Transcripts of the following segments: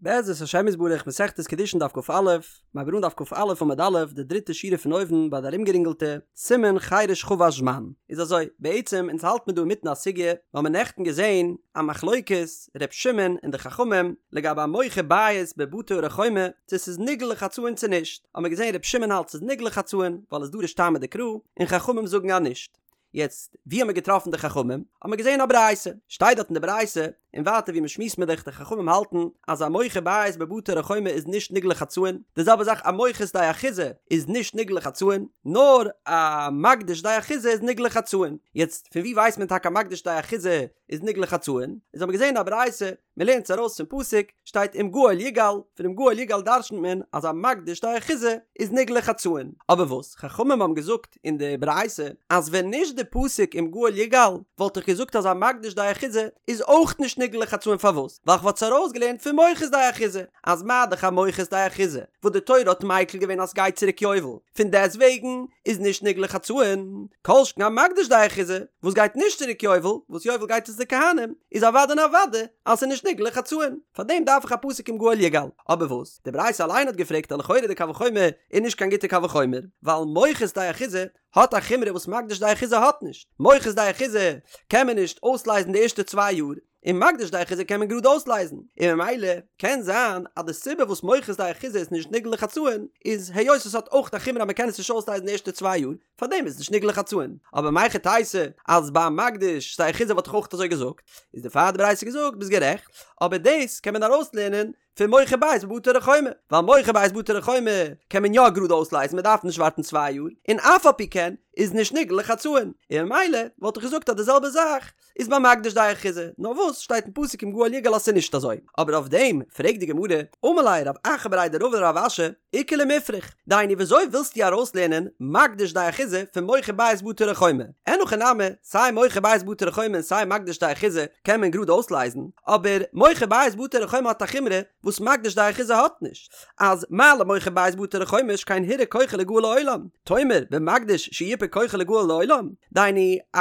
בעזרת השם יתברך מסכת קידושין דף כ"א, מ'הייבט אן דף כ"א עמוד א', די דריטע שורה פון אויבן ביי די ארומגערינגעלטע, סימן חרש חבש זמן. איז אזוי, בעצם אונז האלט מיר דא אינמיטן א סוגיא, מיר האבן נעכטן געזען א מחלוקת ר' שמעון און די חכמים לגבי א מוכר בית בבתי ערי חומה צו ס'איז נגאל לחצאין צו נישט, האבן מיר געזען ר' שמעון האלט ס'איז נגאל לחצאין ווייל עס דורש טעמא דקרא, און חכמים זאגן אז נישט. יעצט ווי האבן מיר געטראפן די חכמים? האבן מיר געזען א ברייתא, שטייט דארט אין די ברייתא, און ווייטער ווי מ'שמועסט מיר דאך די חכמים האלטן אז א מוכר בית בבתי ערי חומה איז נישט נגאל לחצאין, די זעלבע זאך א מוכר שדה אחוזה איז נישט נגאל לחצאין, נאר א מקדיש שדה אחוזה איז נגאל לחצאין. יעצט פון ווי ווייסט מען טאקע א מקדיש שדה אחוזה איז נגאל לחצאין? איז האבן מיר געזען א ברייתא, מ'לערנט עס ארויס פון פסוק, שטייט אם גאל יגאל, פון אם גאל יגאל דרשנ'ט מען אז א מקדיש שדה אחוזה איז נגאל לחצאין. אבער וואס חכמים האבן געזאגט אין די ברייתא אז ווען נישט די פסוק אם גאל יגאל וואלט איך געזאגט אז א מקדיש שדה אחוזה איז אויך נישט נגאל לחצאין פארוואס ווייל כ'וואלט עס ארויסגעלערנט פון מוכר שדה אחוזה אז מה דאך א מוכר שדה אחוזה וואס די תורה האט מיקל געווען אז סגייט צוריק יובל פון דעסט וועגן איז נישט נגאל לחצאין כל שכן א מקדיש שדה אחוזה וואס גייט נישט צוריק יובל וואס יובל גייט עס די כהנים איז אוודאי און אוודאי אז ס'איז נישט נגאל לחצאין פארדעם דארף איך א פסוק אם גאל יגאל אבער וואס די ברייתא אליין האט געפרעגט אז לכאורה די קל וחומר איז נישט קיין גוטע קל וחומר, ווייל מוכר שדה אחוזה האט א חומרא וואס מקדיש שדה אחוזה האט נישט, מוכר שדה אחוזה קען מען נישט אויסלייזן די ערשטע צוויי יאר, און מקדיש שדה אחוזה קען מען גראד אויסלייזן, און ממילא קען זיין אז די סיבה וואס מוכר שדה אחוזה איז נישט נגאל לחצאין איז היות עס האט אויך א חומרא אז מען קען עס נישט אויסלייזן די ערשטע צוויי יאר, פארדעם איז נישט נגאל לחצאין, אבער מהיכי תיתי אז ביי מקדיש שדה אחוזה וואלט איך אויך אזוי געזאגט, איז דערפאר האט די ברייתא געזאגט ביסט גערעכט, אבער דאס קען מען ארויסלערנען פון מוכר בית בבתי ערי חומה, ווייל מוכר בית בבתי ערי חומה קען מען יא גראד אויסלייזן מען דארף נישט ווארטן צוויי יאר, און אף על פי כן איז נישט נגאל לחצאין, און ממילא וואלט איך געזאגט אז די זעלבע זאך איז ביי מקדיש שדה אחוזה, נאר וואס שטייט אין פסוק אם גאל יגאל אז ס'איז נישט אזוי, אבער אויף דעם פרעגט די גמרא, אמר ליה רב אחא בריה דרבא לרב אשי, איכא למיפרך, דהיינו וויאזוי ווילסטו ארויסלערנען מקדיש שדה אחוזה פון מוכר בית בבתי ערי חומה? אין הכי נמי, סיי מוכר בית בבתי ערי חומה און סיי מקדיש שדה אחוזה קען מען גראד אויסלייזן, אבער מוכר בית בבתי ערי חומה האט א חומרא וואס מקדיש שדה אחוזה האט נישט, אז מה למוכר בית בבתי ערי חומה שכן הורע כוחו ליגאל לעולם, תאמר במקדיש שיופה כוחו ליגאל לעולם, דהיינו א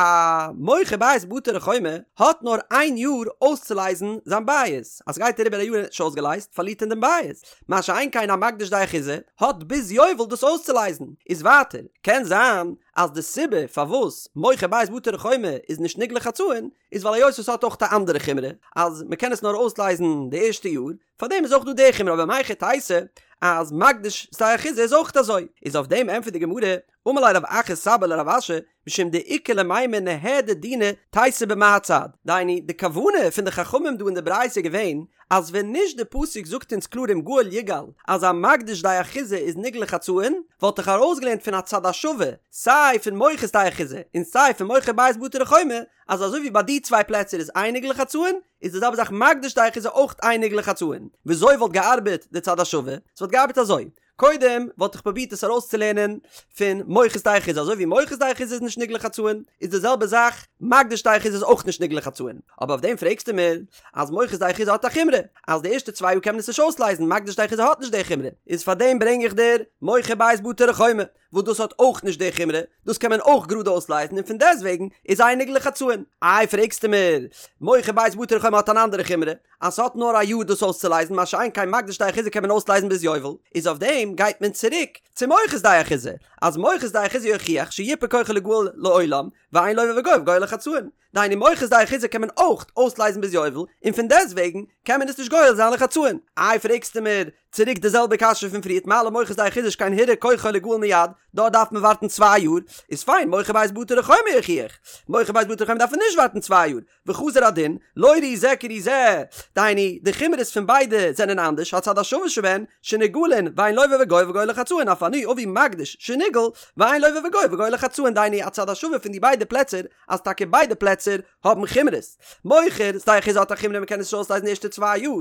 מוכר בית בבתי ערי חומה האט נאר איין יאר אויסצולייזן זיין בית, אז סגייט אריבער א יאר און ער האט נישט אויסגעלייזט פארלירט ער דעם בית, מה שאין כן א מקדיש שדה אחוזה האט ביז יובל דאס אויסצולייזן, איז ווייטער קען זיין אז די סיבה פארוואס מוכר בית בבתי ערי חומה איז נישט נגאל לחצאין איז ווייל היות עס האט אויך א אנדערע חומרא אז מען קען עס נאר אויסלייזן די ערשטע יאר פארדעם איז אויך דא די חומרא אבער מהיכי תיתי אז מקדיש שדה אחוזה איז אויך אזוי איז אויף דעם ענטפערט די גמרא אמר ליה רב אחא סבא לרב אשי משום דאיכא למימר ניהדר דינא תיתי במה הצד, דהיינו די כוונה פון די חכמים דא אין די ברייתא איז געווען אז ווען נישט די פסוק זאגט אונז קלאר אם גאל יגאל אז א מקדיש שדה אחוזה איז נגאל לחצאין וואלט איך ארויסגעלערנט פון א צד השווה סיי פון מוכר שדה אחוזה און סיי פון מוכר בית בבתי ערי חומה אז אזוי ווי ביי די צוויי פלעצער איז אין נגאל לחצאין איז די זעלבע זאך מקדיש שדה אחוזה אויך אין נגאל לחצאין וויאזוי וואלט געארבעט די צד השווה? ס'וואלט געארבעט אזוי קודם וואלט איך פרובירט עס ארויסצולערנען פון מוכר שדה אחוזה, אזוי ווי מוכר שדה אחוזה איז נישט נגאל לחצאין, איז די זעלבע זאך מקדיש שדה אחוזה איז אויך נישט נגאל לחצאין. אבער אויף דעם פרעגסטו מיר אז מוכר שדה אחוזה האט א חומרא אז די ערשטע צוויי יאר קען מען עס נישט אויסלייזן, מקדיש שדה אחוזה האט נישט די חומרא, איז פאר דעם ברענג איך דיר מוכר בית בבתי ערי חומה וואס דאס האט אויך נישט די חומרא, דאס קען מען אויך גראד אויסלייזן און פון דעסטוועגן איז אין נגאל לחצאין. איי פרעגסטו מיר מוכר בית בבתי ערי חומה האט אן אנדערע חומרא, אז ס'האט נאר א יאר דאס אויסצולייזן מה שאין כן מקדיש שדה אחוזה קען מען אויסלייזן ביז יובל, איז אויף דעם גייט מען צוריק צו מוכר שדה אחוזה, אז מוכר שדה אחוזה יוכיח שיופה כוחו ליגאל לעולם, ואין לוה וגובה גואל לחצאין, דהיינו מוכר שדה אחוזה קען מען אויך אויסלייזן ביז יובל, און פון דעסטוועגן קען מען עס נישט גואל זיין לחצאין. איי פרעגסטו מיר צוריק די זעלבע קשיא פון פריערט מה למוכר שדה אחוזה שכן הורע כוחו ליגאל מיד, דארט דארף מען ווארטן צוויי יאר, איז פיין מוכר בית בבתי ערי חומה יוכיח, מוכר בית בבתי ערי חומה דארף מען נישט ווארטן צוויי יאר, וחזר הדין, לא ראי זה כראי זה, דהיינו, די חומרות פון ביידע זענען אנדערש, הצד השווה שבהן, שנגאלין, ואין לוה וגובה וגואל לחצאין, אף אני אביא מקדיש, שנגאל, ואין לוה וגובה וגואל לחצאין, דהיינו, הצד השווה פון די ביידע פלעצער, אז טאקע ביידע פלעצער האבן חומרות. מוכר שדה אחוזה האט א חומרא מ'קען עס נישט אויסלייזן די ערשטע צוויי יאר.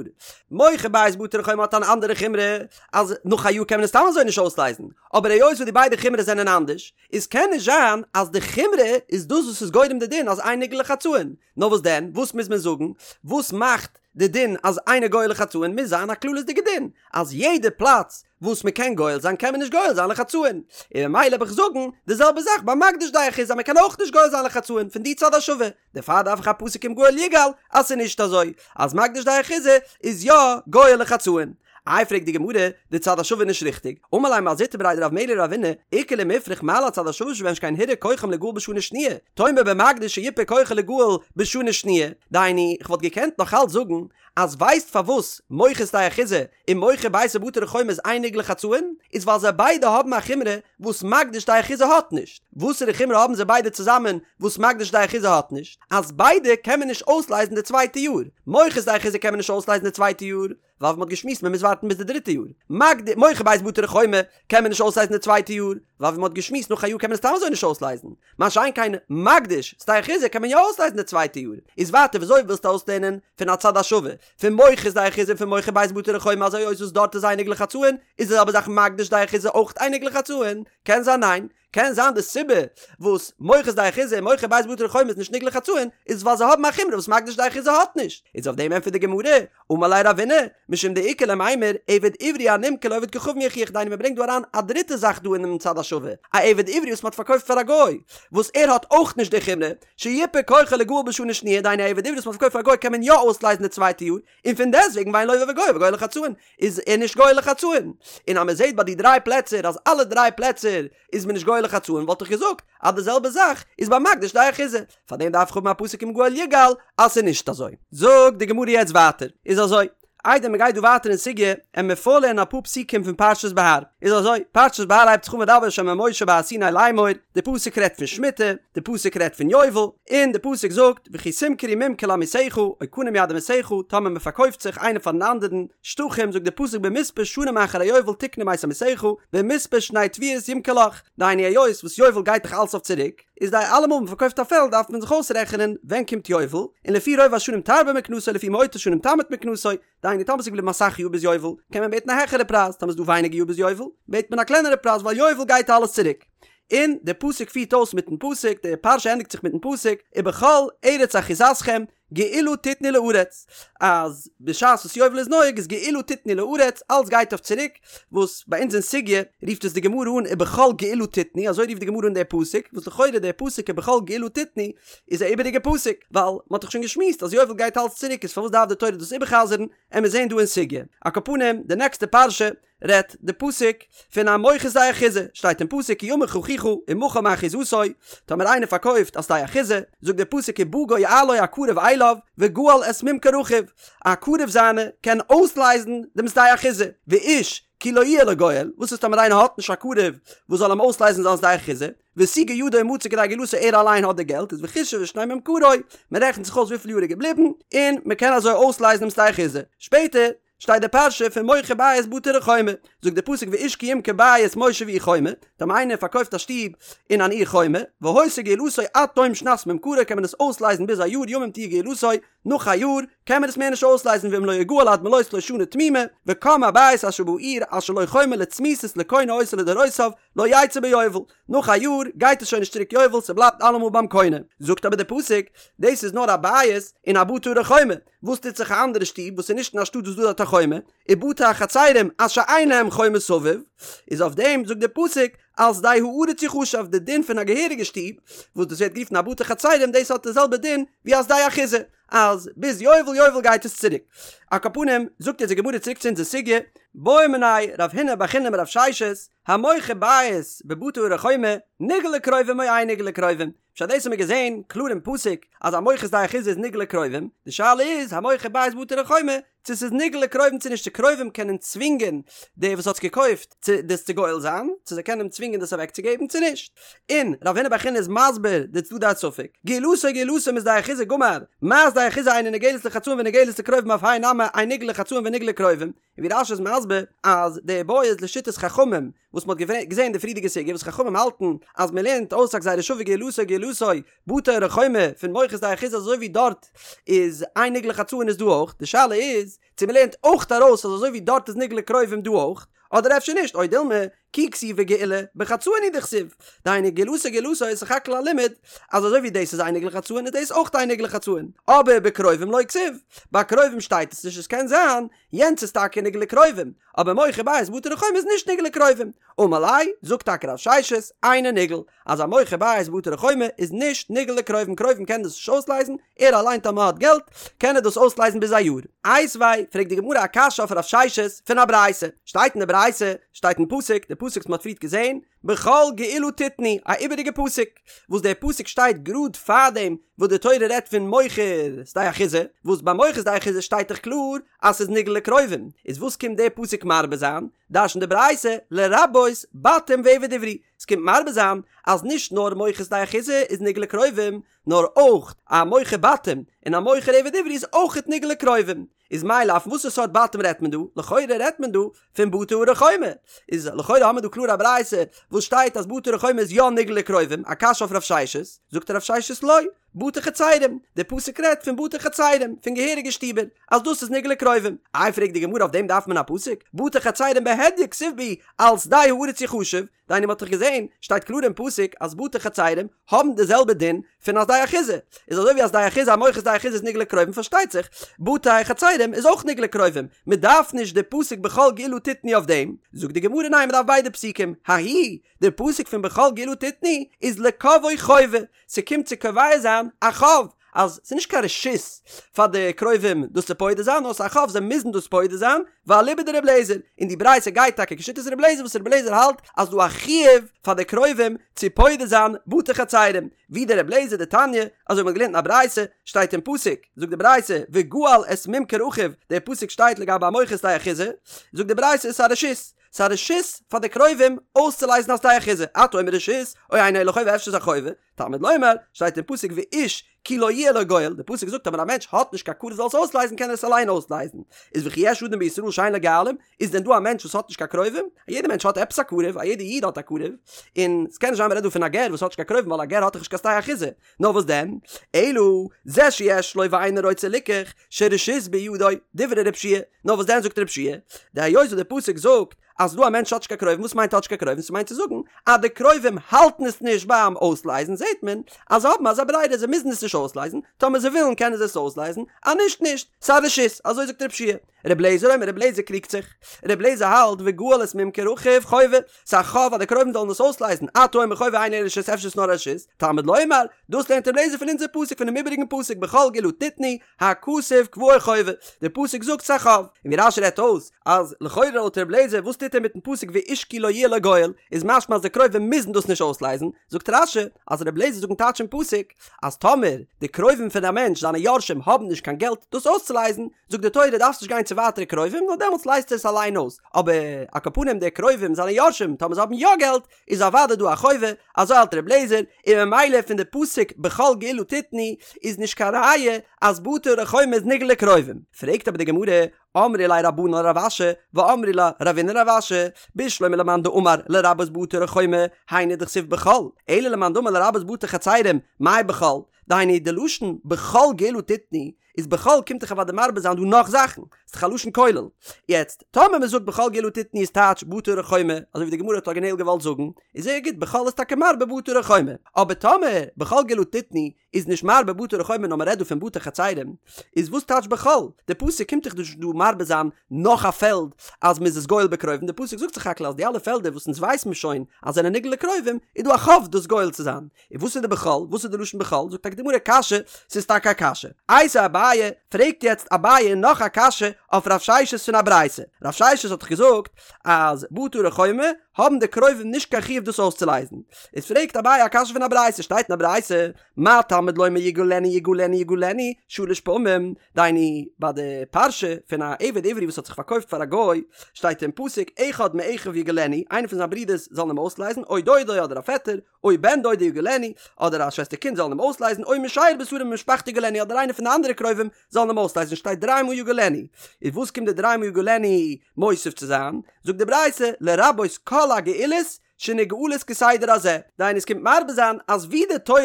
מוכר בית בבתי ערי חומה האט אן אנדערע חומרא, אז נאך א יאר קען מען עס סתם אזוי נישט אויסלייזן. אבער היות וואס די ביידע חומרות זענען אנדערש, איז קען נישט זיין אז די חומרא איז דאס וואס איז גורם די דין אז אין נגאל לחצאין, נאר וואס דען, וואס מוז מען זאגן, וואס מאכט די דין אז אינו גואל לחצאין מוז זיין א כללית'דיגע דין אז יעדע פלאץ וואס מען קען גואל זיין קען מען נישט גואל זיין לחצאין, און ממילא וועל איך זאגן די זעלבע זאך ביי מקדיש שדה אחוזה אז מען קען אויך נישט גואל זיין לחצאין פון די צד השווה, דערפאר דארף איך א פסוק אם גאל יגאל אז ס'איז נישט אזוי אז מקדיש שדה אחוזה איז יא גואל לחצאין. איי פרעגט די גמרא, די צד השווה איז נישט ריכטיג, אמר ליה מר זוטרא בריה דרב מרי לרבינא, איכא למיפרך מה להצד השווה שבהן שכן הורע כוחם ליגאל בשנה שניה, תאמר במקדיש שיפה כוחו ליגאל בשנה שניה, דהיינו, כ'וואלט געקענט נאך אלץ זאגן אז ווייסט פארוואס מוכר שדה אחוזה און מוכר ביתו בבתי ערי חומה איז אין נגאל לחצאין? איז ווייל זיי ביידע האבן א חומרא וואס מקדיש שדה אחוזה האט נישט. וואסערע חומרא האבן זיי ביידע צוזאמען וואס מקדיש שדה אחוזה האט נישט? אז ביידע קען מען נישט אויסלייזן די צווייטע יאר. מוכר שדה אחוזה קען מען נישט אויסלייזן די צווייטע יאר, ווייל ווי מ'האט געשמועסט מ'מוז ווארטן ביז די דריטע יאר. מקד מוכר בית בבתי ערי חומה קען מען נישט אויסלייזן די צווייטע יאר, ווייל ווי מ'האט געשמועסט נאך א יאר קען מען עס סתם אזוי נישט אויסלייזן. מה שאין כן מקדיש שדה אחוזה קען מען יא אויסלייזן די צווייטע יאר. איז ווייטער וויאזוי ווילסטו אויסלערנען פון א צד השווה פון מוכר שדה אחוזה און פון מוכר בית בבתי ערי חומה אז היות וואס דארט איז אין נגאל לחצאין איז די זעלבע זאך מקדיש שדה אחוזה אויך אין נגאל לחצאין? קען זיין ניין. קען זיין די סיבה וואס מוכר שדה אחוזה און מוכר בית בבתי ערי חומה איז נישט נגאל לחצאין איז ווייל זיי האבן א חומרא וואס מקדיש שדה אחוזה האט נישט. איז אויף דעם ענטפערט די גמרא, אמר ליה רבינא, משום דאיכא למימר, עבד עברי הנמכר לעובד כוכבים יוכיח דהיינו מען ברענגט דא אריין א דריטע זאך דא אינעם צד השווה, א עבד עברי וואס מען האט פארקויפט פאר א גוי, וואס ער האט אויך נישט די חומרא, שיפה כוחו ליגאל בשנה שניה, דהיינו א עבד עברי וואס מען האט פארקויפט פאר א גוי קען מען יא אויסלייזן די צווייטע יאר, און פון דעסטוועגן ואין לוה וגואל וגואל לחצאין, איז ער נישט גואל לחצאין. און אז מען זעט ביי די דריי פלעצער אז אלע דריי פלעצער איז מען נישט גואל לחצאין וואלט איך געזאגט אז די זעלבע זאך איז ביי מקדיש שדה אחוזה, פארדעם דארף איך האבן א פסוק אם גאל יגאל אז ס'איז נישט אזוי. זאגט די גמרא יעצט ווייטער, איז אזוי, איידער מ'גייט דא ווייטער אין סוגיא, עמיר פארלערנען אפאר פסוקים פון פרשת בהר. איז אזוי, פרשת בהר הייבט זיך אן וידבר ה' אל משה בהר סיני לאמור, די פסוק רעדט פון שמיטה, די פסוק רעדט פון יובל, און די פסוק זאגט, וכי תמכרו ממכר לעמיתך, או קנה מיד עמיתך, טאמער מ'פארקויפט זיך איינער פארן אנדערן, שטחים, זאגט די פסוק במספר שנים אחר היובל תקנה מאת עמיתך, במספר שני תבואות ימכר לך, דהיינו היות וואס יובל גייט דאך אלס אויף צוריק, איז די אלעמאל מען פארקויפט א פעלד דארף מען זיך אויסרעכענען ווען קומט יובל, און לפי רוב השנים תרבה מקנתו לפי מועט השנים תמעיט מקנתו, דהיינו טאמער ס'איז געבליבן אסאך יאר ביז יובל קען מען בעטן א העכערע פרייז, טאמער איז דא ווייניגער יאר ביז יובל בעט מען א קלענערע פרייז ווייל יובל גייט אלעס צוריק. און די פסוק פירט אויס מיטן פסוק, די פרשה ענדיגט זיך מיטן פסוק, ובכל ארץ אחוזתכם גאולה תתנו לארץ, אז בשעת וואס יובל איז נוהג איז גאולה תתנו לארץ, אלס גייט אויף צוריק, וואס ביי אונז אין סוגיא רופט עס די גמרא אן ובכל גאולה תתנו, אזוי רופט די גמרא אן דער פסוק, וואס לכאורה דער פסוק ובכל גאולה תתנו איז א איבעריגע פסוק, ווייל מען האט דאך שוין געשמועסט אז יובל גייט אלס צוריק איז פארוואס דארף די תורה דאס איבערחזר'ן, עמיר זעהן דא אין סוגיא. על כל פנים, די נעקסטע פרשה רעדט די פסוק פון א מוכר שדה אחוזה, שטייט אין פסוק כי ימוך אחיך ומכר מאחוזתו, טאמער איינער פארקויפט א שדה אחוזה, זאגט דער פסוק ובא גואלו הקרוב אליו וגאל את ממכר אחיו, א קרוב זיינע קען אויסלייזן דעם שדה אחוזה, ואיש כי לא יהיה לו גואל, וואס איז טאמער איינער האט נישט א קרוב וואס זאל אים אויסלייזן זיין שדה אחוזה, והשיגה ידו ומצא כדי גאולתו ער אליין האט די געלט איז וחשב את שני ממכרו, מען רעכנט זיך אויס וויפיל יאר איז געבליבן, און מען קען אזוי אויסלייזן דעם שדה אחוזה. שפעטער שטייט די פרשה פון מוכר בית בבתי ערי חומה, זאגט די פסוק ואיש כי ימכור בית מושב עיר חומה, טאמער איינער פארקויפט א שטוב אין אן עיר חומה, והיתה גאולתו עד תום שנת ממכרו קען מען עס אויסלייזן ביז א יאר ימים תהיה גאולתו, נאך א יאר קען מען עס מער נישט אויסלייזן ואם לא יגאל עד מלאות לו שנה תמימה, וקם הבית אשר בעיר אשר לו חומה לצמיתות לקונה אותו לדורותיו, לא יצא ביובל, נאך א יאר גייט עס שוין נישט צוריק יובל ס'בלייבט אלעמאל ביים קונה, זאגט אבער די פסוק, דאס איז נאר א בית אין א בתי ערי חומה, וואס טוט זיך א אנדערע שטוב וואס איז נישט אין א שטאט וואס דא דארט א חומה, ובתי החצרים אשר אין להם חומה סביב, איז אויף דעם זאגט דער פסוק על שדה הארץ יחשב, די דין פון א געהעריגע שטוב, וואס דאס ווערט גערופן א בתי חצרים, דאס האט די זעלבע דין ווי א שדה אחוזה, אז ביז יובל יובל גייט עס צוריק. על כל פנים, זאגט יעצט די גמרא צוריק צו אונזער סוגיא, בעא מיניה רב הונא בר חיננא מרב ששת, המוכר בית בבתי ערי חומה, נגאל לקרובים או אין נגאל לקרובים, פשט דאס האבן מיר געזען קלאר אין פסוק אז המוכר שדה אחוזה איז נגאל לקרובים, די שאלה איז המוכר בית בבתי ערי חומה צו ס'איז נגאל לקרובים צו נישט צו קרובים קענען צווינגען דער וואס האט עס געקויפט צו דאס צו גואל זיין, צו זיי קענען אים צווינגען דאס אוועקצוגעבן צו נישט. און רב הונא בר חיננא איז מסביר די צדדי הספק, גאולתו גאולתו משדה אחוזה גמר, מה שדה אחוזה אינה נגאלת לחצאין ונגאלת לקרובים אף האי נמי אין נגאל לחצאין ונגאל לקרובים, און ווי רש"י איז מסביר אז די בעיא איז לשיטת חכמים וואס מ'האט געזען אין די פריערדיגע סוגיא וואס חכמים האלטן אז מ'לערנט אויס א גזירה שווה גאולתו גאולתו בתי ערי חומה פון מוכר שדה אחוזה אזוי ווי דארט איז אין נגאל לחצאין איז דא אויך, די שאלה איז צו מ'לערנט אויך ארויס אז אזוי ווי דארט איז נגאל לקרובים דא אויך, אדער אפשר נישט, או דילמא, כי כתיבא גאולה, בחצאין הוא דכתיב, דהיינו גאולתו גאולתו איז סך הכל א לימוד אז אזוי ווי דאס איז אינו נגאל לחצאין איז דאס אויך אינו נגאל לחצאין, אבער בקרובים לא כתיב, ביי קרובים שטייט עס נישט עס קען זיין יענץ איז טאקע נגאל לקרובים, אבער מוכר בית בבתי ערי חומה איז נישט נגאל לקרובים, אמר ליה, זאגט טאקע רב ששת, אינו נגאל, אז א מוכר בית בבתי ערי חומה איז נישט נגאל לקרובים, קרובים קענען דאס נישט אויסלייזן, ער אליין טאמער האט געלט קען ער דאס אויסלייזן ביז א יאר. איתיביה, פרעגט די גמרא א קשיא אויף רב ששת פון א ברייתא, שטייט אין די ברייתא, שטייט אין פסוק, די פסוק וואס מען האט פריערט געזען, בכל גאולה תתנו, א איבעריגע פסוק, וואס דער פסוק שטייט גראד פארדעם וואס די תורה רעדט פון מוכר שדה אחוזה, וואס ביי מוכר שדה אחוזה שטייט דאך קלאר אז ס'איז נגאל לקרובים, איז וואס קומט דער פסוק מרבה זיין? דרש'נט די ברייתא, לרבות בתים ועבד עברי, ס'קומט מרבה זיין אז נישט נאר מוכר שדה אחוזה איז נגאל לקרובים, נאר אויך א מוכר בתים און א מוכר עבד עברי איז אויכעט נגאל לקרובים. איז מאי לאו פון וואסערע סארט בתים רעדט מען דא? לכאורה רעדט מען דא פון בתי ערי חומה. איז לכאורה האמיר דא קלאר א ברייתא וואס שטייט אז בתי ערי חומה איז יא נגאל לקרובים, א קשיא אויף רב ששת, זאגט רב ששת לא, בתי חצרים, די פסוק רעדט פון בתי חצרים, פון געהעריגע שטיבער, אז דאס איז נגאל לקרובים. איי פרעגט די גמרא אויף דעם דארף מען א פסוק? בתי חצרים בהדיא כתיב בהו על שדה הארץ יחשב, דהיינו מ'האט דאך געזען, שטייט קלאר אין פסוק אז בתי חצרים האבן די זעלבע דין פון א שדה אחוזה, איז אזוי ווי א שדה אחוזה א מוכר שדה אחוזה איז נגאל לקרובים פארשטייט זיך בתי חצרים איז אויך נגאל לקרובים, מ'דארף נישט די פסוק בכל גאולה תתנו אויף דעם, זאגט די גמרא ניין מ'דארף ביידע פסוקים, ההוא, די פסוק פון בכל גאולה תתנו איז לקובעו חובה, ס'קומט צו קובע זיין א חוב, אז ס'איז נישט קיין רשות פאר די קרובים דאס צו פודה זיין, נאר ס'איז א חוב זיי מוזן דאס פודה זיין, ואליבא דר' אליעזר, און די ברייתא גייט טאקע כשיטת ר' אליעזר וואס ר' אליעזר האלט אז ס'דא א חיוב פאר די קרובים צו פודה זיין בתי חצרים, ווי דער ר' אליעזר דתניא, אזוי ווי מ'האט געלערנט אין א ברייתא, שטייט אין פסוק, זאגט די ברייתא, וגאל את ממכר אחיו, דער פסוק שטייט לגבי א מוכר שדה אחוזה, זאגט די ברייתא ס'איז א רשות, ס'איז א רשות פאר די קרובים אויסצולייזן א שדה אחוזה, אתה אומר רשות, או אינו אלא חובה אפשר איז א חובה, תלמוד לומר, שטייט אין פסוק ואיש כי לא יהיה לו גואל, די פסוק זאגט אז ווען א מענטש האט נישט קיין קרוב זאל עס אויסלייזן קען ער עס אליין אויסלייזן, איז וכי יש אדם בישראל שאין לו גואלים, איז דען דא א מענטש וואס האט נישט קיין קרובים? א יעדער מענטש האט עפעס א קרוב, א יעדער איד האט א קרוב, און ס'קען נישט זיין מ'רעדט דא פון א גר וואס האט נישט קיין קרובים ווייל א גר האט דאך נישט קיין שדה אחוזה, נאר וואס דען? אלא זה שיש לו ואינו רוצה ליקח, שרשות בידו, דברי רב שיע, נאר וואס דען זאגט רב שיע, דהיות וואס די פסוק זאגט אז דא א מענטש האט נישט קיין קרובים, וואס מיינט האט נישט קיין קרובים? ס'מיינט צו זאגן אז די קרובים האלטן עס נישט ביים אויסלייזן, זעט מען אז זיי האבן אזא ברירה זיי מוזן עס נישט אויסלייזן, טאמער זיי ווילן קענען זיי עס אויסלייזן, אז נישט נישט, ס'א רשות, אזוי זאגט רב שיע. ר' לעזער אומר, ר' לעזער קריגט זיך, ר' לעזער האלט וגאל את ממכר אחיו חובה, ס'איז א חוב אז די קרובים זאלן עס אויסלייזן, אתה אומר חובה אינו אלא רשות אפשר איז נאר א רשות, תלמוד לומר, דאס לערנט ר' לעזער פון אונזער פסוק פונעם איבעריגן פסוק בכל גאולה תתנו, הכתוב קבעו חובה, דער פסוק זאגט ס'איז א חוב, און ווי רש"י רעדט אויס אז לכאורה לויט ר' לעזער וואס טוט ער מיטן פסוק ואיש כי לא יהיה לו גואל, איז משמע אז די קרובים מוזן דאס נישט אויסלייזן, זאגט רש"י אז ר' לעזער זאגט טייטש אין פסוק אז טאמער די קרובים פון א מענטש זיינע יורשים האבן נישט קיין געלט דאס אויסצולייזן, זאגט די תורה דארפסט נישט גיין צו ווייטערע קרובים נאר דעמאלטס לייזט ער עס אליין אויס, אבער על כל פנים די קרובים זיינע יורשים טאמער זיי האבן יא געלט איז אוודאי דא א חובה, אזוי האלט ר' לעזער, און ממילא פון די פסוק בכל גאולה תתנו איז נישט קיין ראיה אז בתי ערי חומה איז נגאל לקרובים. פרעגט אבער די גמרא, אמרי ליה רבנן לרב אשי, ואמרי לה רבינא לרב אשי, בשלמא למאן דאמר לרבות בתי ערי חומה, היינו דכתיב בכל, אלא למאן דאמר לרבות בתי חצרים, מאי בכל? דהיינו די לשון בכל גאולה תתנו איז בכל קומט דאך אוודאי מרבה זיין דא נאך זאכן, ס'איז דאך א לשון כולל. יעצט, טאמער מ'זאגט בכל גאולה תתנו איז טייטש בתי ערי חומה, אזוי ווי די גמרא האט ארגינעל געוואלט זאגן, איז זייער גוט בכל איז טאקע מרבה בתי ערי חומה. אבער טאמער בכל גאולה תתנו איז נישט מרבה בתי ערי חומה נאר מ'רעדט דא פון בתי חצרים, איז וואס טייטש בכל? די פסוק קומט דאך נישט דא מרבה זיין נאך א פעלד אז מ'איז עס גואל בקרובים, די פסוק זאגט סך הכל אז די אלע פעלדער וואס אונז ווייסן מיר שוין אז זענען נגאל לקרובים, איז דא א חוב דאס גואל צו זיין. און וואס איז די בכל? וואס איז די לשון בכל? זאגט טאקע די גמרא קשיא, ס'איז טאקע א קשיא. איתיביה אביי, פרעגט יעצט אביי נאך א קשיא אויף רב ששת פון א ברייתא. רב ששת האט דאך געזאגט אז בתי ערי חומה האבן די קרובים נישט קיין חיוב דאס אויסצולייזן. איז פרעגט אביי א קשיא פון א ברייתא, שטייט אין א ברייתא, מה תלמוד לומר יגאלנו יגאלנו יגאלנו שלש פעמים, דהיינו ביי די פרשה פון א עבד עברי וואס האט זיך פארקויפט פאר א גוי, שטייט אין פסוק אחד מאחיו יגאלנו, איינער פון זיין ברודערס זאלן אים אויסלייזן, או דודו אדער א פעטער, או בן דודו יגאלנו, אדער א שוועסטער קינד זאלן אים אויסלייזן, או משאר בשרו ממשפחתו יגאלנו, אדער איינער פון די אנדערע קרובים זאלן אים אויסלייזן, שטייט דריי מאל יגאלנו. איז וואס קומט די דריי מאל יגאלנו מוסיף צו זיין? זאגט די ברייתא, לרבות כל הגאולות שנגאלות כסדר הזה, דהיינו עס קומט מרבה זיין אז ווי די תורה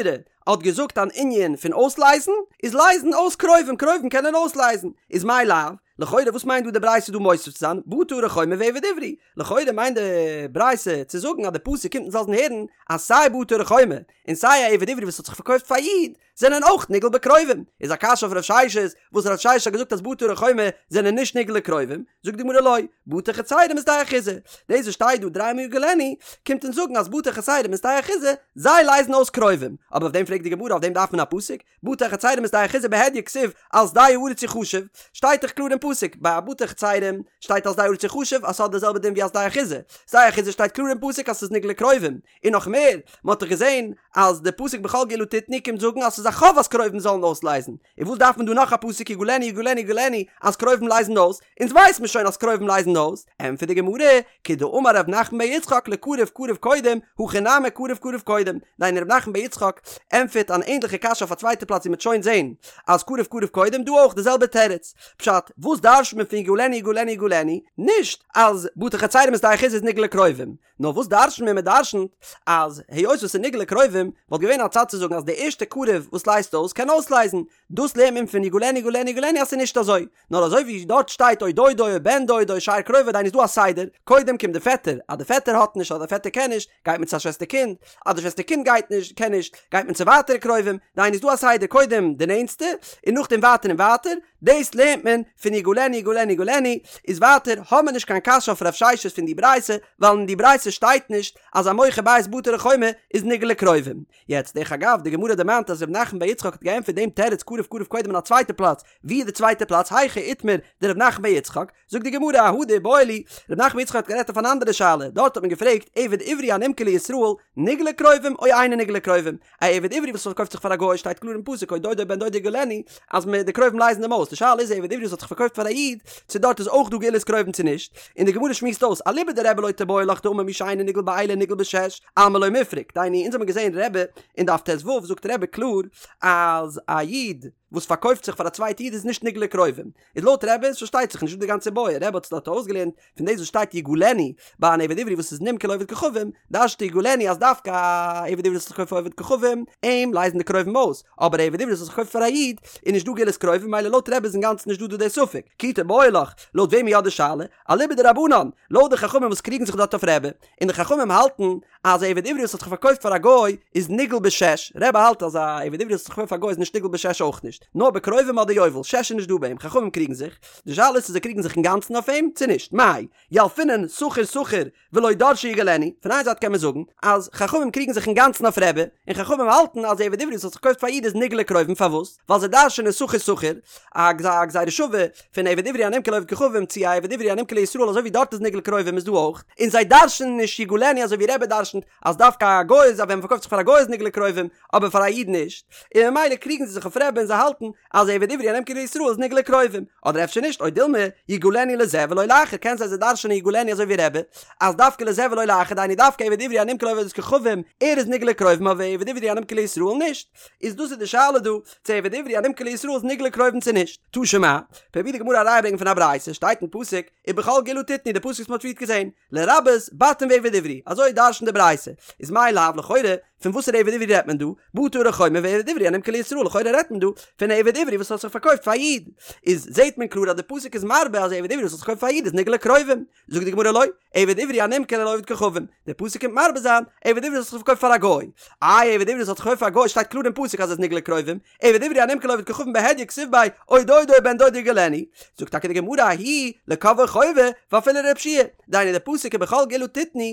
האט געזאגט אן ענין פון אויסלייזן, איז לייזן אויס קרובים, קרובים קענען אויסלייזן, איז מאי לאו? לכאורה וואס מיינט דא די ברייתא דא מוסיף צו זיין בתי ערי חומה ועבד עברי? לכאורה מיינט די ברייתא צו זאגן אז די פסוק קומט אונז לאזן הערן אז סיי בתי ערי חומה און סיי א עבד עברי וואס האט זיך פארקויפט פאר א איד זענען אויך נגאל בקרובים, איז א קשיא אויף רב ששת וואס רב ששת האט געזאגט אז בתי ערי חומה זענען נישט נגאל לקרובים, זאגט די גמרא לא, בתי חצרים ושדה אחוזה, דאס וואס שטייט דא דריי מאל יגאלנו קומט אונז זאגן אז בתי חצרים ושדה אחוזה זיי לייזן אויס קרובים, אבער אויף דעם פרעגט די גמרא אויף דעם דארף מען א פסוק, בתי חצרים ושדה אחוזה בהדיא כתיב על שדה הארץ יחשב, שטייט דאך קלאר אין פסוק, ביי א בתי חצרים שטייט על שדה הארץ יחשב אז ס'האט די זעלבע דין ווי א שדה אחוזה, שדה אחוזה שטייט קלאר אין פסוק אז ס'איז נגאל לקרובים, און נאך מער, מ'האט דאך געזען אז די פסוק בכל גאולה תתנו קומט זאגן אז ס'איז א חוב אז קרובים זאלן אויסלייזן, און וואס דארף מען דא נאך א פסוק יגאלנו יגאלנו יגאלנו אז קרובים לייזן אויס, אונז ווייס מיר שוין אז קרובים לייזן אויס, ענטפערט די גמרא, כדאמר ר' נחמן בר יצחק לקרוב קרוב קודם, הכא נמי קרוב קרוב קודם, דהיינו ר' נחמן בר יצחק ענטפערט אן ענדליכע קשיא אויף א צווייטע פלאץ ווי מ'וועט שוין זען אז קרוב קרוב קודם, דא אויך די זעלבע תירוץ, פשט, וואס דרש'ט מען פון יגאלנו יגאלנו יגאלנו, נישט אז בתי חצרים ושדה אחוזה איז נגאל לקרובים, נאר וואס דרש'נט מען? מען דרש'נט אז היות וואס ס'איז נגאל לקרובים וואלט געווען א צד צו זאגן אז די ערשטע קרוב וואס לייזט אויס קען אויסלייזן, דאס לערנט מען פון יגאלנו יגאלנו יגאלנו אז ס'איז נישט אזוי, נאר אזוי ווי דארט שטייט או דודו או בן דודו שאר קרוביו דהיינו איז דא א סדר, קודם קומט די פעטער, אז די פעטער האט נישט אדער די פעטער קען נישט, גייט מען צו א שוועסטער קינד, אז די שוועסטער קינד גייט נישט, קען נישט, גייט מען צו ווייטערע קרובים, דהיינו איז דא א סדר קודם די נענטסטע, און נאכדעם ווייטער און ווייטער, דאס לערנט מען פון יגאלנו יגאלנו יגאלנו, איז ווייטער האבן מיר נישט קיין קשיא אויף רב ששת פון די ברייתא, ווייל אין די ברייתא שטייט נישט אז א מוכר בית בתי ערי חומה איז נגאל לקרובים. יעצט דרך אגב, די גמרא דערמאנט אז ר' נחמן בר יצחק האט געענטפערט דעם תירוץ קרוב קרוב קודם אין א צווייטע פלאץ, ווי איז די צווייטע פלאץ היכא איתמר דר' נחמן בר יצחק? זאגט די גמרא אהא דאיבעיא להו, ר' נחמן בר יצחק האט גערעדט אויף אן אנדערע שאלה, דארט האט מען געפרעגט עבד עברי הנמכר לישראל נגאל לקרובים או אינו נגאל לקרובים, א עבד עברי וואס פארקויפט זיך פאר א גוי שטייט קלאר אין פסוק או דודו בן דודו יגאלנו אז מען די קרובים לייזן אים אויס, די שאלה איז א עבד עברי וואס האט זיך פארקויפט פאר א איד צו דארט איז אויך דא גאולת קרובים צו נישט, און די גמרא שמועסט אויס אליבא דרבי לא תיבעי לך דאמר מי שאינו נגאל באלה נגאל בשש, אלמא לא מיפרק, דהיינו אונז האבן געזען רבי אין דף ט"ו זאגט רבי קלאר אז א איד וואס פארקויפט זיך פאר א צווייטע איד איז נישט נגאל לקרובים, איז לויט רבי איז פארשטייט זיך נישט דא די גאנצע בעיא, רבי האט עס דארט אויסגעלערנט פון דאס וואס שטייט יגאלנו ביי אן עבד עברי וואס איז נמכר לעובד כוכבים, דרש'נט יגאלנו אז דווקא א עבד עברי וואס האט זיך פארקויפט פאר עובד כוכבים, אים לייזן די קרובים אויס, אבער א עבד עברי וואס האט זיך פארקויפט פאר א איד, איז נישט דא גאולת קרובים ממילא לויט רבי איז אינגאנצן נישט דא דא די ספק, כי תיבעי לך, לויט וועם איז יא די שאלה? אליבא דרבנן, לויט די חכמים וואס קריגן זיך דארט אויף רבי, און די חכמים האלטן אז א עבד עברי וואס האט זיך פארקויפט פאר א גוי איז נגאל בשש, רבי האלט אז א עבד עברי וואס האט זיך פארקויפט פאר א גוי איז נישט נגאל בשש אויך נישט, נאר בקרובים אדער יובל, שש איז נישט דא ביי אים, חכמים קריגן זיך, די שאלה איז צו זיי קריגן זיך אינגאנצן אויף אים צו נישט, מאי, ילפינן שכיר שכיר ולא דרשי יגאלנו, פון איין זייט קען מען זאגן אז חכמים קריגן זיך אינגאנצן אויף רבי, און חכמים האלטן אז עבד עברי וואס האט זיך פארקויפט פאר א איד איז נגאל לקרובים פארוואס? ווייל זיי דרש'נען שכיר שכיר, א גזירה שווה פון עבד עברי הנמכר לעובד כוכבים צו א עבד עברי הנמכר לישראל אזוי ווי דארט איז נגאל לקרובים איז דא אויך, און זיי דרש'נען נישט יגאלנו אזוי ווי רבי דרש'נט אז דווקא א גוי איז אז ווען מ'פארקויפט זיך פאר א גוי איז נגאל לקרובים אבער פאר א איד נישט, און ממילא קריגן זיי זיך אויף רבי און זיי האלטן אז עבד עברי הנמכר לישראל איז נגאל לקרובים, אדער אפשר נישט, או דילמא יגאלנו לזה ולא לאחר, קען זיין זיי דרש'נען יגאלנו אזוי ווי רבי, אז דווקא לזה ולא לאחר, דהיינו דווקא עבד עברי הנמכר לעובד כוכבים, ער איז נגאל לקרובים אבער עבד עברי הנמכר לישראל נישט. איז דאס איז די שאלה דא, צו עבד עברי הנמכר לישראל איז נגאל לקרובים צו נישט. תא שמע, פרובירט די גמרא א ראיה ברענגען פון א ברייתא, שטייט אין פסוק, ובכל גאולה תתנו, די פסוק וואס מ'האט פריערט געזען, לרבות בתים ועבד עברי, אזוי דרש'נט די ברייתא, איז מאי לאו לכאורה, פון וואסערע עבד עברי רעדט מען דא? בתי ערי חומה ועבד עברי הנמכר לישראל, לכאורה רעדט מען דא פון א עבד עברי וואס האט זיך פארקויפט פאר א איד, איז זעט מען קלאר אז די פסוק איז מרבה אז עבד עברי וואס האט זיך פארקויפט פאר א איד איז נגאל לקרובים, זאגט די גמרא לא, עבד עברי הנמכר לעובד כוכבים, די פסוק קומט מרבה זיין, עבד עברי וואס האט זיך פארקויפט פאר א גוי, איי עבד עברי וואס האט זיך פארקויפט פאר א גוי שטייט קלאר אין פסוק אז ער איז נגאל לקרובים, עבד עברי הנמכר לעובד כוכבים בהדיא כתיב ביה או דודו או בן דודו יגאלנו, זאגט טאקע די גמרא ההוא לקובעו חובה ואפילו לרבי יהושע, דהיינו די פסוק ובכל גאולה תתנו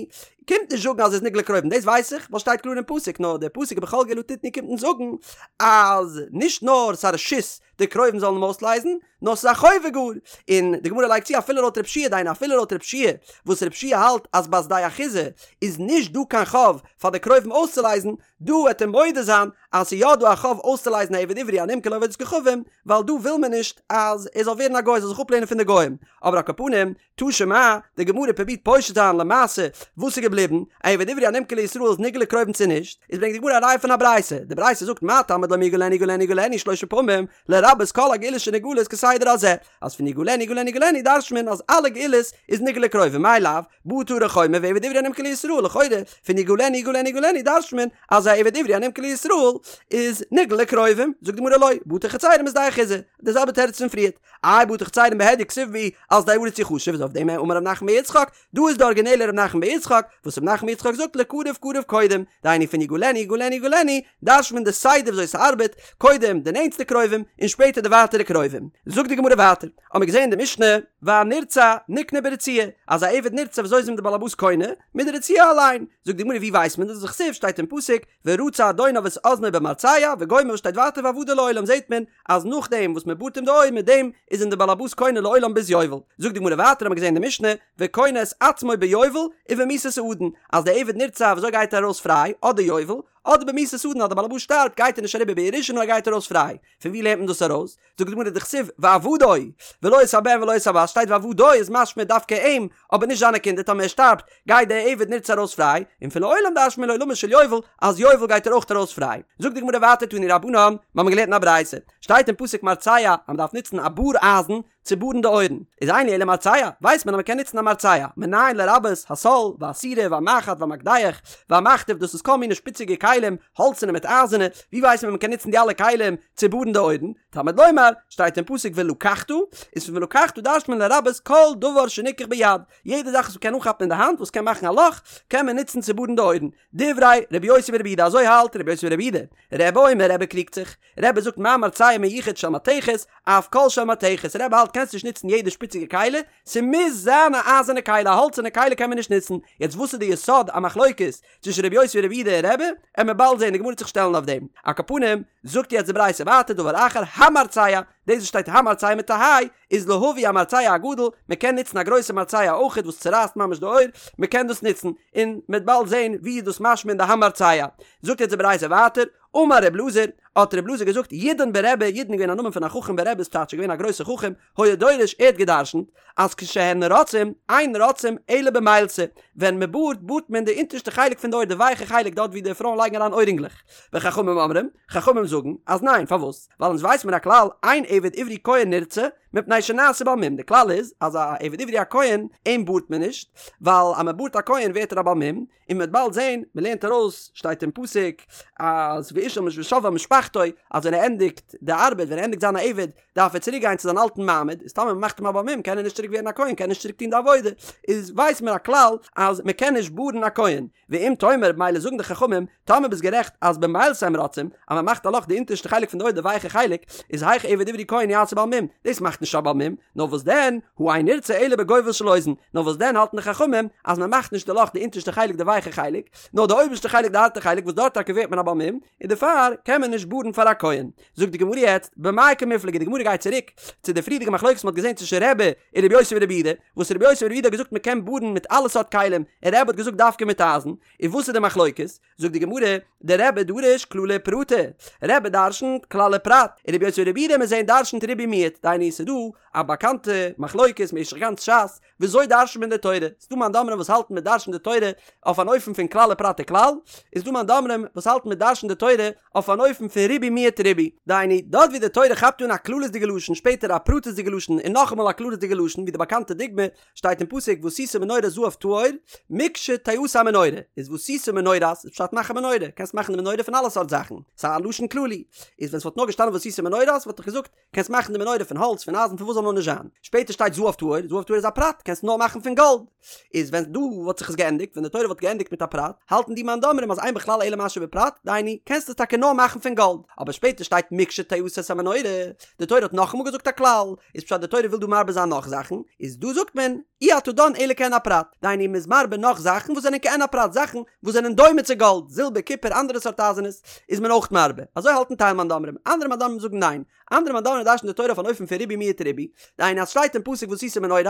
קומט נישט זאגן אז ער איז נגאל לקרובים דאס ווייס איך ווייל שטייט קלאר אין פסוק נאר די פסוק ובכל גאולה תתנו קומט אונז זאגן אז נישט נאר ס'איז א רשות די קרובים זאלן אים אויסלייזן נאר ס'איז א חובה גאר און די גמרא לייגט צו אפילו לויט רבי יהושע דהיינו אפילו לויט רבי יהושע וואס רבי יהושע האלט אז ביי שדה אחוזה איז נישט דא קיין חוב פאר די קרובים אויסצולייזן דא וועט ער מודה זיין אז ס'איז יא דא א חוב אויסצולייזן א עבד עברי הנמכר לעובד כוכבים, ווייל דא וויל מען נישט אז ער זאל ווערן א גוי, זאל זיך אפלערנען פון די גוים. אבער על כל פנים, תא שמע, די גמרא פרובירט פושט זיין למעשה וואס איז געבליבן, א עבד עברי הנמכר לישראל איז נגאל לקרובים צו נישט, איז ברענגט די גמרא א ראיה פון א ברייתא, די ברייתא זאגט מה תלמוד לומר יגאלנו יגאלנו יגאלנו שלשה פעמים, לרבות כל הגאולות שנגאלות כסדר. בסדר הזה, אז פון יגאלנו יגאלנו יגאלנו דרש'נט מען אז אלע גאולות איז נגאל לקרובים, מאי לאו, בטי הרי חומר ועבד עברי הנמכר לישראל, לכאורה פון יגאלנו יגאלנו יגאלנו דרש'נט מען אז א עבד עברי הנמכר לישראל איז נגאל לקרובים, זאגט די גמרא לא, בטי חצרים בשדה אחוזה, די זעלבע תירוץ פון פריערט, איי בטי חצרים בהדיא כתיב בהו על שדה הארץ יחשב איז אויף דעם אמר רב נחמן בר יצחק, דא איז די ארגינעלע רב נחמן בר יצחק, וואס רב נחמן בר יצחק זאגט לקרוב קרוב קודם, דהיינו פון יגאלנו יגאלנו יגאלנו, דרש'נט מען די סדר וויאזוי ס'ארבעט, קודם די נענטסטע קרובים, און שפעטער די ווייטערע קרובים. זאגט די גמרא ווייטער, האמיר געזען אין די משנה, והנרצע נקנה ברצועה, אז א עבד נרצע וויאזוי איז אים די בעל הבית קונה? מיט די רצועה אליין. זאגט די גמרא ווי ווייסט מען דאס? דכתיב שטייט אין פסוק, ורצע אדוניו את אזנו במרצע, וגומר שטייט ווייטער ועבדו לעולם זעט מען אז נאכדעם וואס מען בארט אים די אויער מיט דעם איז אים די בעל הבית קונה לעולם ביז יובל. זאגט די גמרא ווייטער האמיר געזען אין די משנה, וקונה את עצמו ביובל ובמיתת האדון, אז די עבד נרצע וויאזוי גייט ער ארויס פריי, אדער יובל, אדער במיתת האדון אז די בעל הבית שטארבט גייט ער נישט אריבער בירושה נאר ער גייט ארויס פריי. פון ווי לערנט מען דאס ארויס? זאגט די גמרא דכתיב ועבדו ולא את הבן ולא את הבת שטייט ועבדו איז משמע דווקא אים אבער נישט זיינע קינדער טאמער ער שטארבט גייט דער עבד נרצע ארויס פריי און פון לעולם דרש'נט מען לעולמו של יובל אז יובל גייט ער אויך ארויס פריי זאגט די גמרא ווייטער תנו רבנן מיר האבן געלערנט אין א ברייתא שטייט אין פסוק מרצע אז מען דארף נוצן א באר אייזן צו בארן די אויערן, איז אין לי אלא מרצע, ווייסט מען אז מען קען נוצן א מרצע, מנין לרבות הסול, והסירה, והמחט, והמקדח, והמכתב, דאס איז כל מיני שפיציגע כלים, האלצענע מיט אייזערנע, ווי ווייסט מען מען קען נוצן די אלע כלים צו בארן די אויערן? תלמוד לומר, שטייט אין פסוק ולקחת, איז פון ולקחת דרש'ט מען לרבות כל דבר שניקח ביד, יעדע זאך וואס מען קען אנכאפן אין די האנט וואס קען מאכן א לאך, קען מען נוצן צו בארן די אויערן. דברי רבי יוסי ברבי יהודה אזוי האלט רבי יוסי ברבי יהודה. רבי אומר רבי קריגט זיך. רבי זאגט מה מרצע מיוחד של מתכת, אף כל של מתכת, רבי האלט קענסט נישט נוצן יעדע שפיציגע כלי, ס'מוז זיין א אייזערנע כלי, א האלצערנע כלי קען מען נישט נוצן, יעצט וואס איז די יסוד המחלוקת צווישן רבי יוסי ברבי יהודה און רבי, עמיר באלד זען, די גמרא וועט זיך שטעלן אויף דעם, על כל פנים, זאגט יעצט די ברייתא ווייטער דבר אחר, המרצע, דאס וואס שטייט המרצע מיט א היי, איז להביא המרצע הגדול, מען קען נוצן א גרויסע מרצע אויכעט וואס צורייסט ממש די אויער, מען קען דאס נוצן, און מען וועט באלד זען ווי איז דאס משמע אין די המרצע. זאגט יעצט די ברייתא ווייטער, אמר ר' אלעזר, האט ר' אלעזר געזאגט, ידען ברבי, ידען איז געווען א נאמען פון א חכם ברבי איז טייטש געווען א גרויסער חכם, היה דורש, ער האט גע'דרש'נט, אז כשהן רוצעים, אין רוצעים אלא במילתא, ווען מען בארט, בארט מען די אונטערשטע חלק פון די אויער, די ווייכע חלק דארט ווי די פרויען לייגן אריין אוירינגלעך. וחכמים אומרים, חכמים זאגן, אז ניין, פארוואס? ווייל אונז ווייס מיר א כלל, אין עבד עברי כהן נרצע, מפני שנעשה בעל מום, די כלל איז, אז א עבד עברי א כהן, אים בארט מען נישט, ווייל אז מען בארט א כהן ווערט ער א בעל מום, און מ'וועט באלד זען, מ'לערנט ארויס, שטייט אין פסוק, אז ואיש אל ושב אל משפחתו, אז ווען ער ענדיגט די ארבעט, ווען ער ענדיגט זיין א עבד, דארף ער צוריק גיין צו זיין אלטן מעמד, איז טאמער מ'מאכט אים א בעל מום, קען ער נישט צוריק ווערן א כהן, קען ער נישט צוריק טון די עבודה, איז ווייסט מען א כלל, אז מ'קען נישט בארן א כהן. ואם תאמר, מילא זאגן די חכמים, טאמער ביסט גערעכט אז במילתא הם רוצעים, אז מ'מאכט א לאך די אונטערשטע חלק פון די אויער די ווייכע חלק, איז היאך עבד עברי כהן יעשה בעל מום, דאס מאכט נישט א בעל מום, נאר וואס דען, הא אין נרצע אלא בגובל של אוזן, נאר וואס דען האלטן די חכמים אז מען מאכט נישט די לאך די אונטערשטע חלק די ווייכע חלק, נאר די אויבערשטע חלק די הארטע חלק וואס דארט טאקע ווערט מען א בעל מום, און דערפאר קען מען נישט בארן פאר א כהן. זאגט די גמרא יעצט, במאי קמיפלגי, די גמרא גייט צוריק צו די פריערדיגע מחלוקת מען האט געזען צווישן רבי און רבי יוסי ברבי יהודה, וואס רבי יוסי ברבי יהודה האט געזאגט מען קען בארן מיט אלע סארט כלים, און רבי האט געזאגט דווקא מיט אייזן, און וואס איז די מחלוקת? זאגט די גמרא, דרבי דריש כללי ופרטי, רבי דרשנ'ט כלל ופרט, און רבי יוסי ברבי יהודה מיר זעהן דרשנ'ט ריבוי מיעוט, דהיינו ס'איז דא א באקאנטע מחלוקת משך גאנץ ש"ס, וויאזוי דרשנ'ט מען די תורה, ס'איז דא מאן דאמרים וואס האלטן מען דרשנ'ט די תורה אויף אן אופן פון כלל ופרט וכלל, איז דא מאן דאמרים וואס האלטן מען דרשנ'ט די תורה אויף אן אופן פון ריבוי מיעוט ריבוי, דהיינו, דארט ווי די תורה כאפט אן א כללית'דיגע לשון, שפעטער א פרטית'דיגע לשון און נאכאמאל א כללית'דיגע לשון, ווי די באקאנטע דוגמא, שטייט אין פסוק ועשית מנורת זהב טהור, מקשתעשה המנורה, איז ועשית מנורת איז פשט מאך א מנורה, קענסט מאכן די מנורה פון אלע סארט זאכן, ס'איז א לשון כללי, איז ווען ס'וואלט נאר געשטאנען ועשית מנורת וואלט איך געזאגט, קענסט מאכן די מנורה פון האלץ, פון אייזן, פון וואס זאל נאר נישט זיין. שפעטער שטייט זהב טהור, זהב טהור איז א פרט, קענסט נאר מאכן פון גאלד. איז ווען דא וואלט זיך עס געענדיגט, ווען די תורה וואלט געענדיגט מיט א פרט, האלטן די מאן דאמרים אז אין בכלל אלא מה שבפרט, דהיינו, קענסט עס טאקע נאר מאכן פון גאלד. אבער שפעטער שטייט מקשתעשה את המנורה, די תורה האט נאכאמאל געזאגט א כלל, איז פשט די תורה וויל דא מרבה זיין נאך זאכן, איז דא זאגט מען, אי אתה דן אלא כעין הפרט, דהיינו מ'איז מרבה נאך זאכן וואס זענען כעין הפרט, זאכן וואס זענען דומה צו גאלד, זילבער, קופער, אנדערע סארט אייזענעס, איז מען אויך מרבה. אזוי האלטן טייל מאן דאמרים. אנדערע מאן דאמרים זאגן ניין. אנדערע מאן דאמרים דרש'נען די תורה אויף אן אופן פון ריבוי מיעוט ריבוי. דהיינו אז שטייט אין פסוק ועשית מנורת,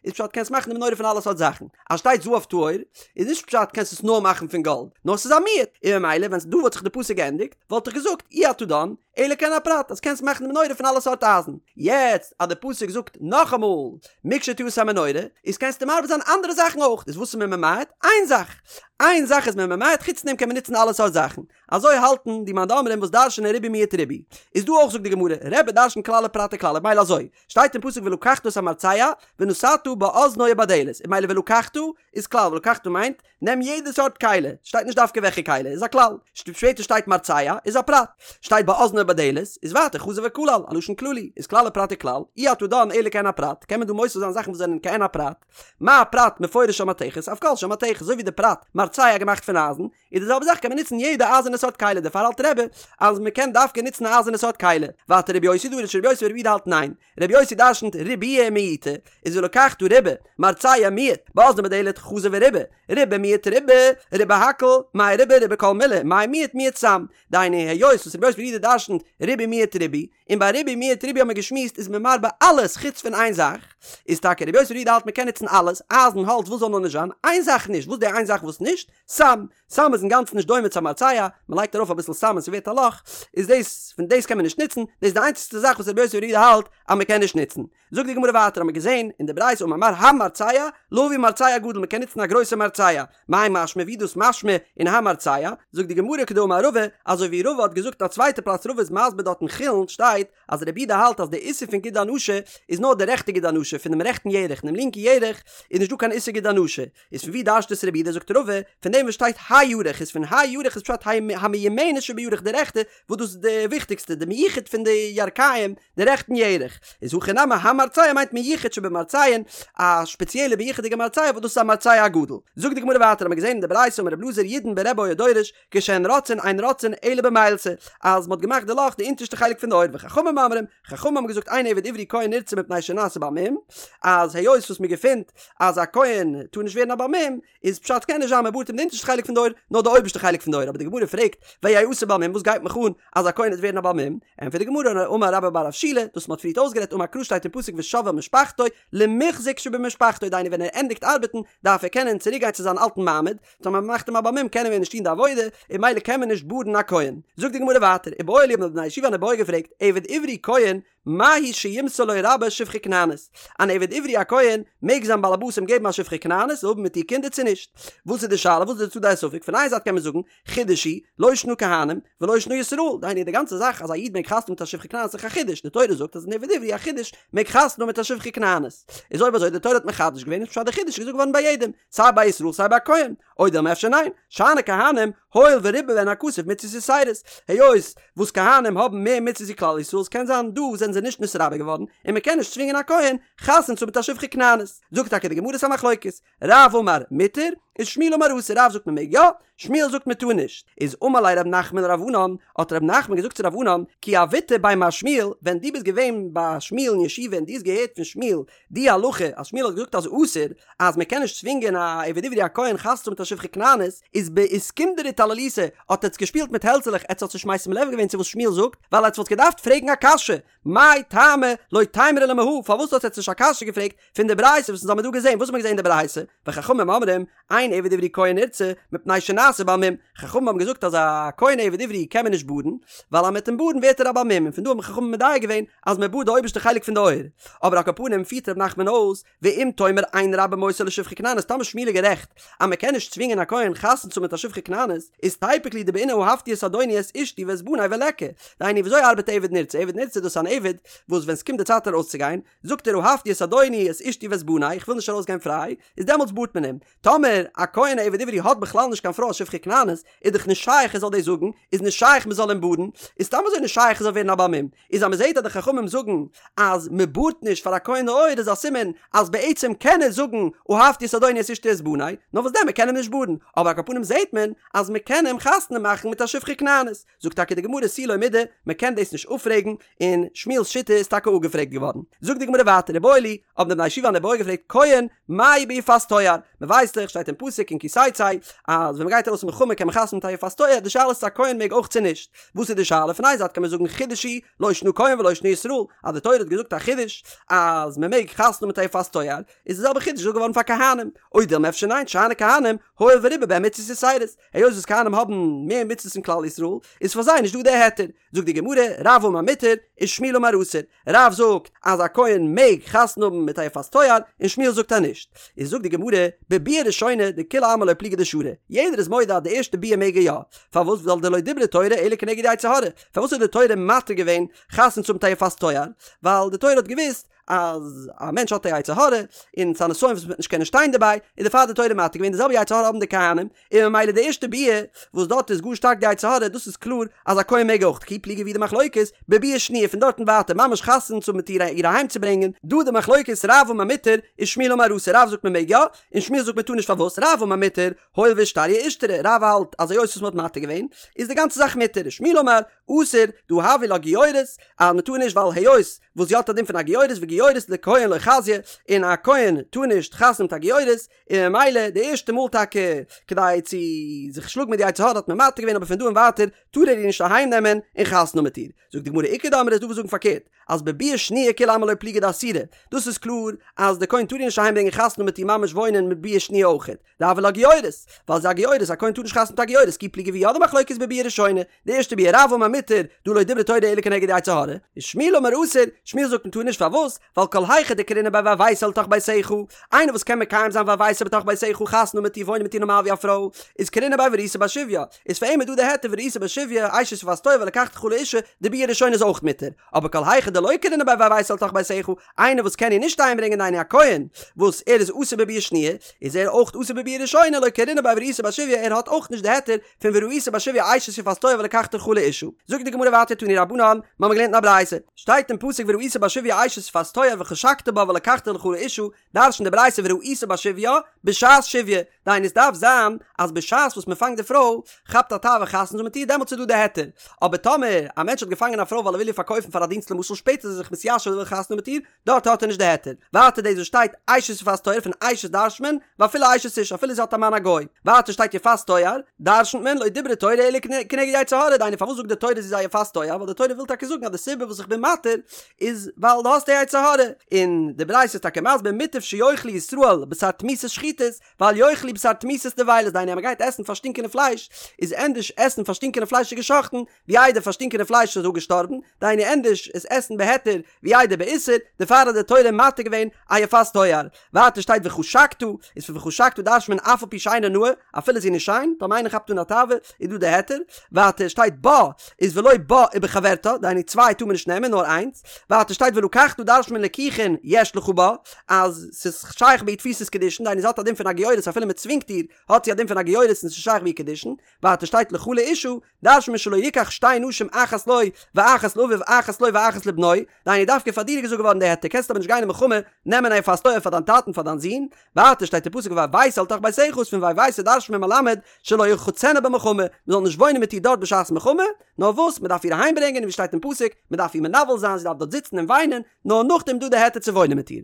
איז פשט קענסט מאכן די מנורה פון אלע סארט זאכן. אז שטייט זהב טהור, איז נישט פשט קענסט עס נאר מאכן פון גאלד, נאר ס'איז א מיעוט. און ממילא ווען דא וואלט זיך די פסוק געענדיגט, וואלט איך געזאגט אי אתה דן, אלא כעין הפרט אז קענסט מאכן די מנורה פון אלע סארט אייזן. יעצט אז די פסוק זאגט נאכאמאל מקשתעשה המנורה, איז קענסטו מרבה זיין אנדערע זאכן אויך. איז וואס איז מען ממעט? איין זאך. איין זאך איז מען ממעט, חוץ דעם קען מען נוצן אלע סארט זאכן. אזוי האלטן די מאן דאמרים וואס דרש'נען ריבוי מיעוט ריבוי. איז דא אויך זאגט די גמרא, רבי דרש'נט כלל ופרט וכלל, מילא אזוי, שטייט אין פסוק ולקחת את המרצע ונתתה באזנו ובדלת, איז מילא ולקחת איז כלל, ולקחת מיינט, נעם יעדע סארט כלי, שטייט נישט דווקא וועלכע כלי, איז א כלל, שפעטער שטייט מרצע, איז א פרט, שטייט באזנו ובדלת, איז ווייטער חזר וכלל, א לשון כללי, איז כלל ופרט וכלל, אי אתה דן אלא כעין הפרט, קען מען דא מוסיף זיין זאכן וואס זענען כעין הפרט, מה פרט מפורש של מתכת, אף כל של מתכת, אזוי ווי די פרט מרצע געמאכט פון אייזן, איז די זעלבע זאך קען מען נוצן יעדע אייזערנע סארט כלי, דערפאר האלט רבי אז מען קען דווקא נוצן א אייזערנע סארט כלי, ווייטער רבי יוסי דריש רבי יוסי ברבי יהודה האלט ניין, רבי יוסי דרשנט ריבויי ומיעוטי, איז ולקחת ריבה, מרצע מיעט, באזנו ובדלת חזר וריבה, ריבה מיעט ריבה, ריבה הכל, מאי ריבה ריבה כל מילי, מאי מיעט מיעט סם, דהיינו היות וואס רבי יוסי ברבי יהודה דרשנט ריבוי מיעט ריבוי, און ביי ריבוי מיעט ריבוי האט מען געשמועסט איז מען מרבה אלעס חוץ פון איין זאך, איז טאקע רבי יוסי ברבי יהודה האלט מען קען נוצן אלעס, אייזן, האלץ, וואס זאל נאר נישט זיין, איין זאך נישט, וואס די איין זאך וואס נישט? סם, סם איז אינגאנצן נישט דומה צו א מרצע, מען לייגט ארויף אביסל סם און ס'ווערט א לאך, איז דאס, פון דאס קען מען נישט נוצן, דאס איז די איינציגסטע זאך וואס רבי יוסי ברבי יהודה האלט אז מען קען נישט נוצן. זאגט די גמרא ווייטער האט מען געזען אין די ברייתא אמר מר המרצע, להביא מרצע גדול מען קען נוצן א גרויסע מרצע, מאי משמע ווי דאס משמע אין המרצע, זאגט די גמרא כדאמר רבא, אזוי ווי רבא האט געזאגט א צווייטע פלאץ רבא איז מסביר דארט אין חולין שטייט אז רבי יהודה האלט אז די איסור פון גיד הנשה איז נאר די רעכטע גיד הנשה פונעם רעכטן ירך אינעם לינקן ירך איז נישט דא קיין איסור גיד הנשה, איז פון ווי דרש'ט עס רבי יהודה זאגט רבא פון דעם וואס שטייט הירך איז פון הירך איז פשט המיומנת שבירך די רעכטע וואס דאס איז די וויכטיגסטע די מיוחד פון די ירכיים די רעכטן ירך איז הכא נמי המרצע מיינט מיוחד שבמרצעין א שפעציעלע מיוחד'יגע מרצע וואס דאס איז א מרצע הגדול זאגט די גמרא ווייטער האט מען געזען אין די ברייתא אמר רבי אלעזר ידון ברבי היה דורש כשהן רוצעין אין רוצעין אלא במילתא אז מען האט געמאכט די לאך די אונטערשטע חלק פון די אויער וחכמים אומרים חכמים האבן געזאגט אין עבד עברי כהן נרצע מפני שנעשה בעל מום אז היות וואס מען געפינט אז א כהן טאר נישט ווערן א בעל מום, איז פשט קען נישט זיין מען בארט אים די אונטערשטע חלק פון די אויער, נאר די אויבערשטע חלק פון די אויער, אבער די גמרא פרעגט, ויעשה בעל מום וואס גייט מיך אן אז א כהן וועט ווערן א בעל מום, ענטפערט די גמרא, אמר רבה בר רב שילא, דאס מען האט פריערט אויסגערעדט אמר קרא שטייט אין פסוק ושב אל משפחתו, למוחזק שבמשפחתו, דהיינו ווען ער ענדיגט ארבעטן דארף ער קענען צוריק גיין צו זיין אלטן מעמד, טאמער מען מאכט אים א בעל מום קען ער מער נישט טון די עבודה, און ממילא קען מען נישט בארן א כהן. זאגט די גמרא ווייטער, איבעיא להו האבן די בני ישיבה אן איבעיא געפרעגט, עבד עברי כהן, מהו שימסור לו רבו שפחה כנענית? אן עבד עברי א כהן, מעג זיין באלעבאס אים געבן א שפחה כנענית און האבן מיט איר קינדער צו נישט? וואס איז די שאלה? וואס איז די צדדי הספק? פון איין זייט קען מען זאגן, חידוש הוא, לא שנא כהנים, ולא שנא ישראל, דהיינו די גאנצע זאך אז א איד מעג חתונה מיט א שפחה כנענית איז דאך א חידוש, די תורה זאגט אז אן עבד עברי א חידוש מעג חתונה מיט א שפחה כנענית. איז אויב אזוי די תורה האט מחדש געווען איז פשט די חידוש איז געזאגט געווארן ביי יעדעם, סיי ביי ישראל סיי ביי כהן. או דילמא אפשר ניין, שאני כהנים, הואיל וריבה בהן הכתוב מצוות יתירות, היות וואס כהנים האבן מער מצוות ווי כלל ישראל ס'קען זיין דא זענען זיי נישט נתרבה געווארן און מ'קען נישט צווינגען א כהן חתונה צו האבן מיט א שפחה כנענית. זאגט טאקע די גמרא ס'א מחלוקת, רב אמר מותר, ושמואל אמר אסור, רב זאגט מ'מעג יא, שמואל זאגט מ'טאר נישט. איז אמר ליה רב נחמן לרב ענן, האט רב נחמן געזאגט צו רב ענן, כי הוית בי מר שמואל, ווען דו ביסט געווען ביי שמואל אין ישיבה און דו האסט געהערט פון שמואל די הלכה אז שמואל האט געזאגט אז אסור אז מען קען נישט צווינגען א עבד עברי א כהן חתונה האבן מיט א שפחה כנענית איז באיסקונדרי טלליתו האט עטס געשפילט מיט העלצעלעך עטס האטס נישט משים לב געווען צו וואס שמואל זאגט ווייל עטס וואלט געדארפט פרעגן א קשיא מאי טעמא לא תימרו לה מהא פארוואס האט עטס נישט א קשיא געפרעגט פון די ברייתא וואס אונז האמיר דא געזען וואס האט מען געזען אין די ברייתא וחכמים אומרים אין עבד עברי כהן נרצע מפני שנעשה בעל מום חכמים האבן געזאגט אז א כהן עבד עברי קען מען נישט בארן ווייל אז מען וועט אים בארן ווערט ער א בעל מום און פון דא האבן חכמים מדייק געווען אז מען בארט די אויבערשטע חלק פון די אויער. אבער על כל פנים פירט ר' נחמן אויס, ואם תאמר אין רבו מוסר לו שפחה כנענית טאמער שמואל איז גערעכט אז מען קען נישט צווינגען א כהן חתונה צו האבן מיט א שפחה כנענית, איז תיפוק ליה דבעינא אהבתי את אדוני את אשתי ואת בני וליכא. דהיינו וויאזוי ארבעט עבד נרצע? עבד נרצע דאס איז אן עבד וואס ווען ס'קומט די צייט ארויסצוגיין, זאגט ער אהבתי את אדוני את אשתי ואת בני, איך וויל נישט ארויסגיין פריי, איז דעמאלטס בארט מען אים. טאמער א כהן א עבד עברי האט בכלל נישט קיין פרוי א שפחה כנענית, איז דאך נישט שייך ער זאל דאס זאגן, איז נישט שייך מען זאל אים בארן, איז סתם אזוי נישט שייך ער זאל ווערן א בעל מום, איז אז מען זעט אז די חכמים זאגן אז מען בארט נישט פאר א כהן די אויער איז א סימן אז בעצם קען ער זאגן אהבתי את אדוני את אשתי ואת בני, נאר וואס דען מען קען אים נישט בארן, אבער על כל פנים זעט מען אז מען קען אים חתונה מאכן מיט א שפחה כנענית. זאגט טאקע די גמרא תו לא מידי, מען קען דאס נישט אפפרעגן, און שמואל'ס שיטה איז טאקע אפגעפרעגט געווארן. זאגט די גמרא ווייטער איבעיא להו, האבן די בני ישיבה אן איבעיא געפרעגט כהן, מהו ביפת תואר? מען ווייסט דאך, שטייט אין פסוק אין כי תצא, אז ווען מען גייט ארויס אין מלחמה קען מען חתונה מיט א יפת תואר, די שאלה איז צו א כהן מעג אויך צו נישט. וואס איז די שאלה? פון איין זייט קען מען זאגן חידוש הוא, לא שנא כהן ולא שנא ישראל, אז די תורה האט געזאגט א חידוש אז מען מעג חתונה מיט א יפת תואר, איז די זעלבע חידוש געזאגט געווארן פאר כהנים, או דילמא אפשר ניין, שאני כהנים, הואיל וריבה בהן מצוות יתירות, היות וואס כהנים האבן מער מצוות פון כלל ישראל, איז פאר זיי נישט דא די היתר. זאגט די גמרא, רב אמר מותר, ושמואל אמר אסור. רב זאגט אז א כהן מעג חתונה האבן מיט א יפת תואר, און שמואל זאגט אז נישט. איז זאגט די גמרא, בביאה ראשונה דכולי עלמא לא פליגי דשרי, יעדער איז מודה אז די ערשטע ביאה מעג ער יא. פארוואס? ווייל דלא דברה תורה אלא כנגד יצר הרע. פארוואס האט די תורה מתיר געווען חתונה צו האבן מיט א יפת תואר? ווייל די תורה האט געוואוסט אז א מענטש האט א יצר הרע, און ס'איז א נסיון וואס מ'וועט נישט קענען שטיין דערביי, איז דערפאר האט די תורה מתיר געווען, די זעלבע יצר הרע האבן די כהנים, און ממילא די ערשטע ביאה וואס דארט איז גאר שטארק די יצר הרע, דאס איז קלאר אז א כהן מעג אויך, כי פליגי ווי די מחלוקת, בביאה שניה פון דארט און ווייטער ממש חתונה צו האבן מיט איר איר אהיים צו ברענגען, דא די מחלוקת רב אמר מותר ושמואל אמר אסור, רב זאגט מ'מעג יא, און שמואל זאגט מ'טאר נישט פארוואס, רב אמר מותר, הואיל ואישתריא אישתרי, רב האלט אז היות וואס מ'האט מתיר געווען איז די גאנצע זאך מותר, ושמואל אמר אסור, דהא הויא לה גיורת, אז מ'טאר נישט ווייל היות וואס זי האט א דין פון א גיורת וגיורת לכהן לא חזיא, און א כהן טאר נישט חתונה מיט א גיורת, און ממילא די ערשטע מאל טאקע כדי צו זיך שלאגן מיט די יצר הרע האט מען מתיר געווען אבער פון דא און ווייטער טאר ער איר נישט אהיים נעמען און חתונה האבן מיט איר. זאגט די גמרא איכא דאמרי איז דא וואס זאגן פארקערט אז בביאה שניה כולי עלמא לא פליגי דאסירא, דאס איז קלאר אז די כהן טאר איר נישט אהיים ברענגען חתונה האבן מיט איר ממש וואוינען מיט ביאה שניה אויכעט, דהויא לה גיורת, ווייל זי איז א גיורת, א כהן טאר נישט חתונה מיט א גיורת, כי פליגי ווי יא די מחלוקת בביאה ראשונה, די ערשטע ביאה רב אמר מותר, דהא לא דברה תורה אלא כנגד יצר הרע, ושמואל אמר אסור, שמואל זאגט מען טאר נישט פארוואס, ווייל כל היכא דקרינא ביה והבאתה לתוך ביתך, איינער וואס קען מקיים זיין והבאתה בתוך ביתך חתונה האבן מיט איר וואוינען מיט איר נארמאל ווי א פרוי, איז קרינא ביה וראית בה שביה, איז פאר אים איז דא די היתר וראית בה שביה, אשת יפת תואר ולקחת לך לאשה, די ביאה ראשונה איז אויך מותר, אבער כל היכא דלא קרינא ביה והבאתה לתוך ביתך, איינער וואס קען איר נישט אהיימברענגען דהיינו א כהן וואס ער איז אסור בביאה שניה, איז ער אויך אסור בביאה ראשונה, לא קרינא ביה וראית בה שביה, ער האט אויך נישט די היתר פון וראית בה שביה אשת יפת תואר ולקחת לך לאשה. זאגט די גמרא ווייטער תנו רבנן, מיר האבן געלערנט אין א ברייתא, שטייט אין פסוק וראית בשביה אשת יפת תואר וחשקת בה ולקחת לך לאשה, דרש'נט די ברייתא וראית בשביה, בשעת שביה, דהיינו עס דארף זיין אז בשעת וואס מען פאנגט די פרוי, כאפט א תאווה חתונה צו האבן מיט איר דעמאלטס איז דא די היתר, אבער טאמער א מענטש האט געפאנגען א פרוי ווייל ער וויל איר פארקויפן פאר א דינסט למשל שפעטער איז ער זיך מתיישב ער וויל חתונה האבן מיט איר, דארט האט ער נישט די היתר. ווייטער דאס וואס שטייט אשת יפת תואר פון אשת דרש'נט מען, ואפילו אשת איש אפילו זי האט א מאן א גוי. ווייטער שטייט יפת תואר, דרש'נט מען לא דברה תורה אלא כנגד יצר הרע, דהיינו פארוואס זאגט די תורה זי איז א יפת תואר, ווייל די תורה וויל טאקע זאגן אז די סיבה וואס איך בין מתיר איז ווייל דו האסט די יצר הרע. און די ברייתא איז טאקע מסביר מוטב שיאכלו ישראל בשר תמותות שחוטות, ואל יאכלו בשר תמותות נבילות, דהיינו אז מען גייט עסן פארשטינקענע פלייש, איז ענדערש עסן פארשטינקענע פלייש איז געשאכטן, ווי איידער פארשטינקענע פלייש איז אפגעשטארבן, דהיינו ענדערש עס עסן בהיתר ווי איידער באיסור, דערפאר האט די תורה מתיר געווען א יפת תואר. ווייטער שטייט וחשקת, איז פון וחשקת דרש'נט מען אף על פי שאינה נאה, אפילו זי איז נישט שיין, טאמער איינער כאפט אן א תאווה, איז דא די היתר. ווייטער שטייט בה, איז ולא בה ובחברתה, דהיינו צוויי טאר מען נישט נעמען, נאר איינס. ווייטער שטייט ולקחת דרש'נט מען לקיחין יש לך בה, אז ס'איז שייך ביי איר תפיסת קידושין, דהיינו זי האט א דין פון א גיורת אפילו מ'צווינגט איר, האט זי א דין פון א גיורת און ס'איז שייך ביי איר קידושין. ווייטער שטייט לך לאשה, דרש'נט מען שלא יקח שתי נשים אחת לו ואחת לאביו אחת לו ואחת לבנו, דהיינו דווקא פאר דיר איז געזאגט געווארן די היתר, קענסט אבער נישט גיין אין מלחמה נעמען א יפת תואר פאר דיין טאטן פאר דיין זון, ווייטער שטייט אין פסוק והבאת אל תוך ביתך איז פון והבאת דרש'נט מען מלמד שלא ירחצנה במלחמה, מען זאל נישט וואוינען מיט איר דארט בשעת מלחמה, נאר וואס מען דארף איר אהיים ברענגען און ווי שטייט אין פסוק מען דארף איר מנוול זיין זי דארף דארט זיצן און וויינען, נאר נאכדעם דא די היתר צו וואוינען מיט איר.